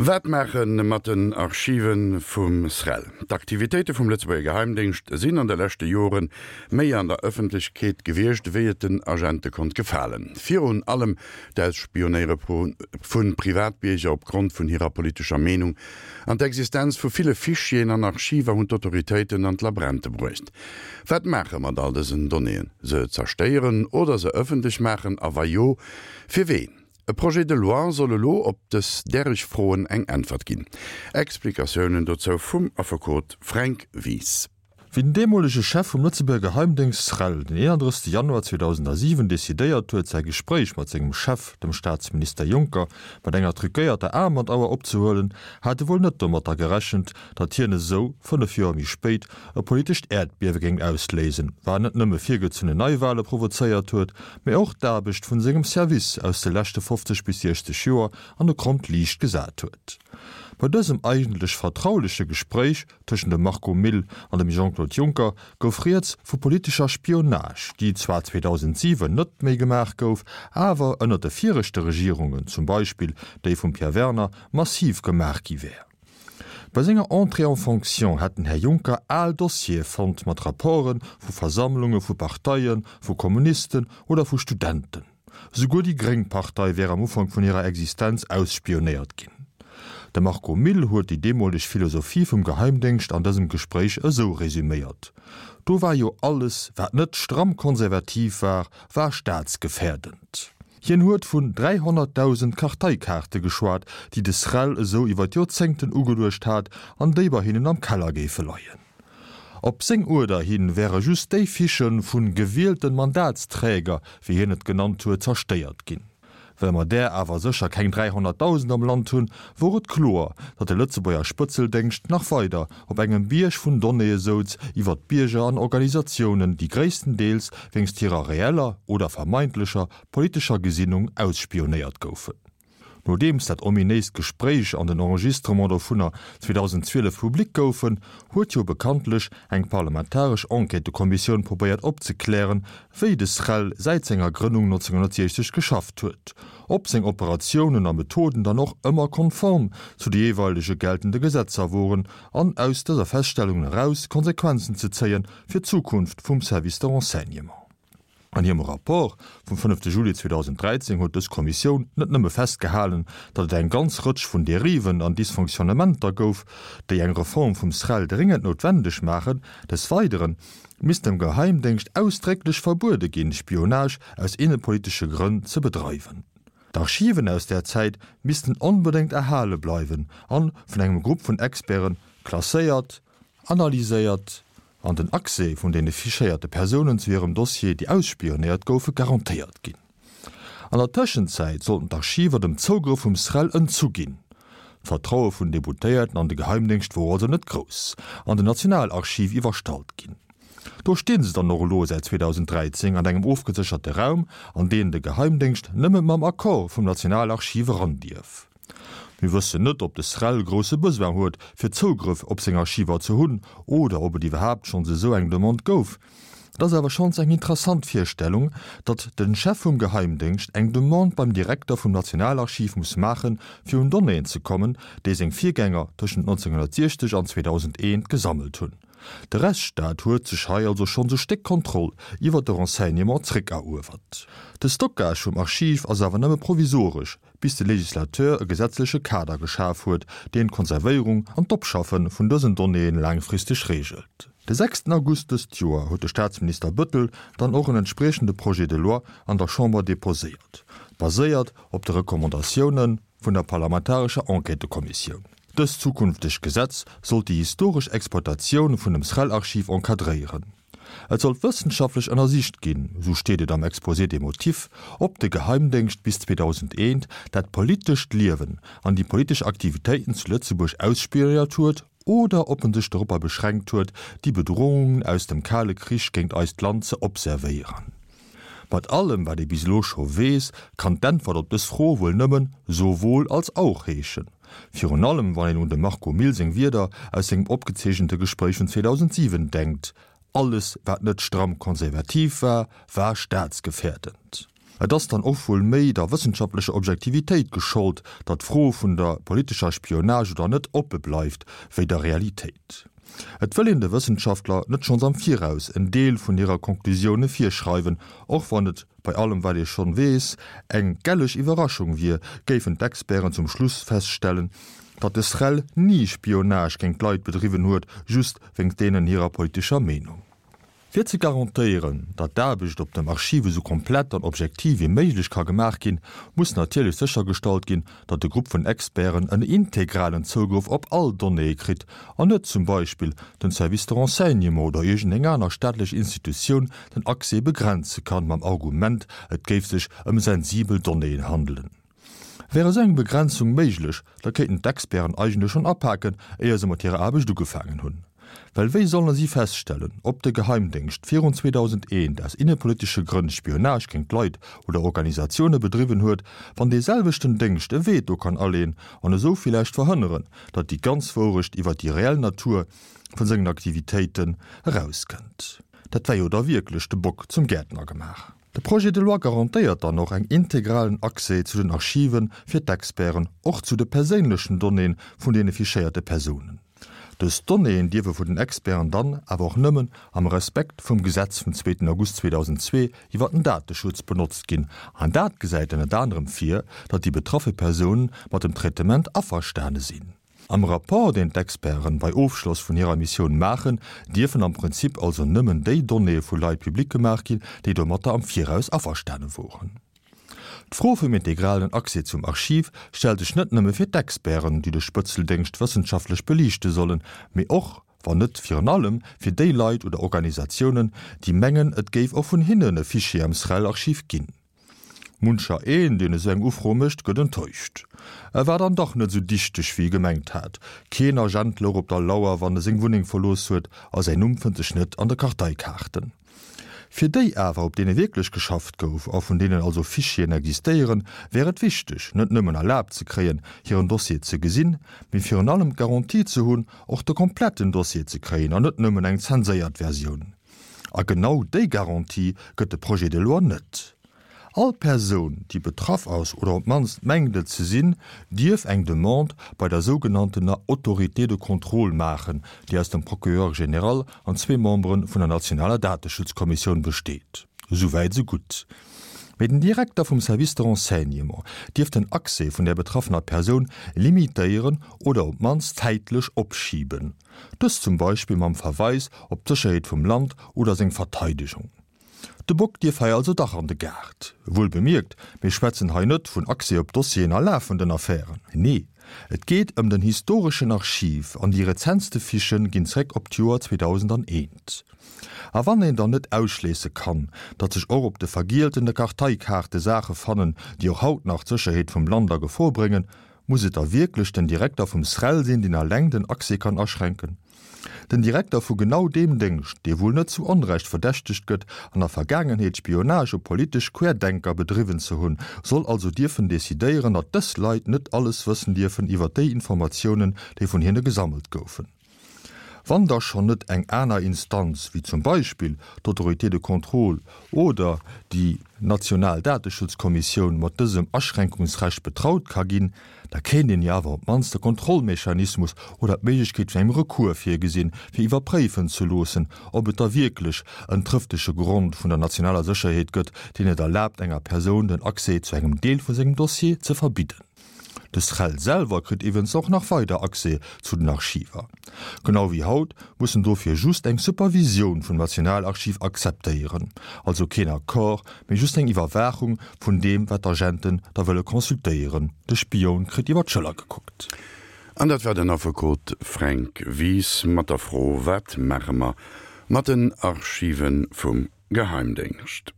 Wat maache mat den Archive vum SREL? D'Aktivitéite vum Lëtzebuerger Geheimdéngscht sinn an de leschte Jore méi an der Ëffentlechkeet gewiescht, wéi et den Agente konnt gefalen. Virun allem d'Ausspionéiere vu Privatbierger op Grond vun hirer politescher Meenung an d'Existenz vu ville Fichieren an Archiver hunn d'Autoritéiten an d'Labränte bruecht. Wat maache mat all dësen Donnéeën? Se zerstéieren oder se ëffentlech maachen? A wa jo, fir ween? E Projet de loi soll elo op dës däreg Froen eng Äntwert ginn. Explikatiounen dozou vum Affekot Fränk Wies. Wéi den deemolege Chef vum Lëtzebuerger Geheimdéngscht SREL den 31 Januar 2007 decidéiert huet, säi Gespréich mat sengem Chef, dem Staatsminister Juncker, mat enger truquéierter Aarmbandsauer opzehuelen, hat e wuel net domatter gerechent, datt hien esou, 5 Joer méi spéit, e politescht Äerdbiewe géing ausléisen, war net nëmme virgezunnen Neiwale provozéiert huet, mä och d'Aarbecht vun sengem Service aus de leschte 50 bis 60 Joer an e krommt Liicht gesat huet. Bei dësem eigentlech vertrauleche Gespréich tëschent dem Marco Mille an dem Jean-Claude Juncker gouf rieds vu politescher Spionage, déi zwar 2007 net méi gemaach gouf, awer ënner de viregte Regierungen, zum Beispill déi vum Pierre Werner, massiv gemaach gi wär. Bei senger Entrée en fonction hätt den Här Juncker al Dossiere fonnt mat Rapporte vu Versammlunge vu Parteien, vu Kommunisten oder vu Studenten. Souguer déi gréng Partei wär am Ufank vun hirer Existenz ausspionéiert ginn. De Marco Mille huet déi deemoleg Philosophie vum Geheimdéngscht an dësem Gespréich esou resüméiert, Do war jo alles, wat net stramm konservativ war, war staatsgefährdend. Hien huet vun 300.000 Karteikaarte geschwat, déi de SREL esou iwwer d'Joerzéngten ugeluecht hat an déi bei hinnen am Keller géife leien. Op seng Uerder hin wäre just déi Fichë vu gewielten Mandatsträger, wéi hien et genannt huet, zerstéiert ginn. Well mer där awer sécher keng 300.000 am Land hunn, wor et kloer, datt de Lëtzebuerger Spëtzeldéngscht nach weider op engem Bierg vun Donnéeë souz iwwer d'Bierger an Organisatiounen, déi gréisstendeels wéinst hirer reeller oder vermeintlecher politescher Gesinnung ausspionéiert goufen. Nodeems dat ominéist Gespréich an den Enregistrement dovunner 2012 public goufen, huet jo bekanntlech eng parlamentaresch Enquêtëkommissioun probéiert opzeklären, wéi de SREL säit senger Grënnung 1960 geschafft huet, ob seng Operatiounen a Methoden dann och ëmmer konform zu de jeeweilege geltende Gesetzer woren an aus dëser Feststellungen eraus Konsequenzen ze zéie fir d'Zukunft vum Service de renseignement. An hirem Rapport vum fënnefte Juli 2013 huet dës Kommissioun net nëmme festgehalen, datt et eng ganz Rëtsch vun Dériven an Dysfonctionnementer gouf, déi eng Reform vum SREL dréngend noutwendeg maachen, des Weidere misst dem Geheimdéngscht ausdrécklech verbuede ginn, Spionage aus innepolitesche Grënn ze bedreiwen. D'Archiven aus där Zäit missten onbedéngt erhale bleiwen an vun engem Grupp vun Experte klasséiert, analyséiert an den Accès vun deene fichéierte Persounen zu hirem Dossier, déi ausspionéiert goufe, garantéiert ginn. An der Tëschenzäit sollten d'Archiver dem Zougrëff vum SREL entzu ginn. D'Vertraue vun Deputéierten an de Geheimdéngscht wor also net grouss an den Nationalarchiv iwwerstallt ginn. Do stinn se dann och elo säit 2013 an engem ofgesécherte Raum, an deen de Geheimdéngscht nëmme mam Accord vum Nationalarchiv eran dierf. Mir wëssen net, ob de SREL grousse Besoin huet, fir Zougrëff op seng Archiver ze hunn, oder ob et iwwerhaapt schonns esou eng Demande gouf. Et ass awer schonns eng interessant Virstellung, datt de Chef vum Geheimdéngscht eng Demande beim Direkter vum Nationalarchiv muss maachen, fir un Donnéeën ze kommen, déi seng Virgänger tëschent 1960 an 2001 gesammelt hunn. De Rechtsstaat huet sech hei also schonns e Stéck Kontroll iwwer de Renseignement zréckeruewert. De Stockage vum Archiv ass awer nëmme provisoresch, bis de Législateur e gesetzleche Kader geschaf huet, deen d'Konservéierung an d'Opschaffe vun dësen Donnéeën laangfristeg reegelt. De sechsten August dëst Joer huet de Staatsminister Bëttel dann och en entspriechende Projet de loi an der Chamber deposéiert, baséiert op de Recommandatioune vun der parlamentarescher Enquêtëkommissioun. Dëst zukünftegt Gesetz sollt déi historesch Exploitatioun vun dem SREL-Archiv encadréieren. Et sollt wëssenschaftlech ënnersicht ginn, sou steet et am Exposé des motifs, ob de Geheimdéngscht bis 2001 dat politescht Liewen an déi politesch Aktivitéiten zu Lëtzebuerg ausspionéiert huet oder ob en sech doropper beschränkt huet, déi Bedrohungen aus dem Kale Krich géint eist Land ze observéieren. Mat allem, wat ee bis elo scho weess, kann d'Äntwert op dës Fro wuel nëmmen sowohl als auch heeschen. Virun allem wann een un dem Marco Mille seng Wierder aus sengem opgezeechente Gespréich vun 2007 denkt, Alles wat net stramm konservativ war, war staatsgefährdend. Et ass dann och wuel méi der wëssenschaftlecher Objektivitéit geschollt, datt d'Fro vun der politescher Spionage oder net oppe bleift, wéi der Realitéit. Et wëll een de Wëssenschaftler net schonns am Viraus en Deel vun hirer Konklusioune virschreiwen, och wann et, bei allem wat ee schonn weess, eng gelleg Iwwerraschung wier, géifen d'Experten zum Schluss feststellen, datt de SREL ni Spionage géint Leit bedriwwen huet, just wéinst deenen hirer politescher Meenung. Fir ze garantéieren, datt d'Aarbecht op dem Archiv esou komplett an objektiv wéi méiglech ka gemaach ginn, muss natierlech séchergestallt ginn, datt de Grupp vun Experten en integralen Zougrëff op all Donnéeë kritt an net zum Beispill den Service de renseignement oder iergendeng aner staatlech Institutioun den Accès begrenze kann mam Argument, et géif sech ëm sensibel Donnéeën handelen. Wär esou eng Begrenzung méiglech, da kéinten d'Experten eigentlech schonn apaken, éier se mat hirer Aarbecht ugefaangen hunn. Well wéi solle si feststellen, ob de Geheimdéngscht virun 2001 aus innepolitesche Grënn Spionage géint Leit oder Organisatioune bedriwwen huet, wann dee selwechten Déngscht e Veto kann aleeën an esou villäicht verhënneren, datt déi ganz Wourecht iwwer déi reell Natur vun sengen Aktivitéiten erauskënnt? Dat wär jo da wierklech de Bock zum Gäertner gemaach. De Projet de loi garantéiert dann och eng integralen Accès zu den Archive fir d'Experten, och zu de perséinlechen Donnéeën vun deene fichéierte Persounen. Dës Donnéeën dierfe vun den Experten dann awer och nëmmen am Respekt vum Gesetz vum zweeten August 2002 iwwer den Dateschutz benotzt ginn, an dat gesäit ënnert anerem vir, datt déi betraffe Persounen mat dem Traitement averstane sinn. Am Rapport, deen d'Experten bei Ofschloss vun hirer Missioun maachen, dierfen am Prinzip also nëmmen déi Donnéeë vu Leit public gemaach ginn, déi domatter am Viraus averstane woren. D'Fro vum integralen Accès zum Archiv stellt sech net nëmme fir d'Experten, déi de Spëtzeldéngscht wëssenschaftlech beliichte sollen, mee och, wann net virun allem, fir déi Leit oder Organisatiounen, déi mengen, et géif och vun hinnen e Fichier am SREL-Archiv ginn. Muncher een, deen esou eng Ufro mécht, gëtt enttäuscht. E war dann dach net esou dichteg, wéi e gemengt hat. Keen Agent louch op der Lauer, wann e seng Wunneng verlooss huet, a säin Numm fënnt sech net an de Karteikaarten. Fir déi awer, op deene wierklech geschafft gouf a vun deenen also Fichieren existéieren, wär et wichteg, net nëmmen erlaabt ze kréien, hiren Dossier ze gesinn, mee virun allem d'Garantie ze hunn, och de kompletten Dossier ze kréien an net nëmmen eng zenséiert Versioun. A genau déi Garantie gëtt de Projet de loi net. All Persoun, déi betraff ass oder op d'mannst mengt et ze sinn, dierf eng Demande bei der sougenanntener Autorité de contrôle maachen, déi aus dem Procureur général an zwee Membere vun der nationaler Dateschutzkommissioun besteet. Esou wäit, esou gutt. Mee den Direkter vum Service de renseignement dierf den Accès vun där betraffener Persoun limitéieren oder op d'mannst zäitlech opschiben. Dëst zum Beispill mam Verweis op d'Sécherheet vum Land oder seng Verteidegung. De Bock dierf hei also dach an de Gaart. Wuel bemierkt, mir schwätzen hei net vun Accès op Dossieren a lafenden Affären. Nee, et geet ëm den historeschen Archiv an déi rezentste Fichë ginn zréck op d'Joer 2001. A wann een dann net ausschléisse kann, datt sech och op de vergieltene Karteikaarte Saache fannen, déi och haut nach d'Sécherheet vum Land a Gefor bréngen, Muss et da wierklech den Direkter vum SREL sinn, deen alleng den Accès kann aschränken? Den Direkter vu genau deem Déngscht, dee wuel net zu Onrecht verdächtegt gëtt, an der Vergaangenheet Spionage op politesch Querdenker bedriwwen ze hunn, soll also dierfen decidéieren, datt dës Leit net alles wëssen dierfen iwwer déi Informatiounen, déi vun hinne gesammelt goufen? Wann da schonn net eng aner Instanz, wéi zum Beispill d'Autorité de contrôle oder déi national Dateschutzkommissioun mat dësem Aschränkungsrecht betraut ka ginn, da kéint een jo awer op d'mannst e Kontrollmechanismus oder d'Méiglechkeet vun engem Recours virgesinn, fir iwwerpréifen ze loossen, ob et da wierklech en trëftege Grond vun der nationaler Sécherheet gëtt, deen et erlaabt, enger Persoun den Accès zu engem Deel vu sengem Dossier ze verbidden. De SREL selwer kritt iwwens och nach weider Accès zu den Archiver. Genau wéi haut muss en dofir just eng Supervisioun vum Nationalarchiv akzeptéieren, also keen Accord, mee just eng Iwwerwaachung vun deem wat d'Agenten da wëlle consultéieren. De Spioun kritt iwwer d'Schëller gekuckt. An dat war den Affekot Fränk Wies mat der Fro, Wat maache mer mat den Archive vum Geheimdéngscht?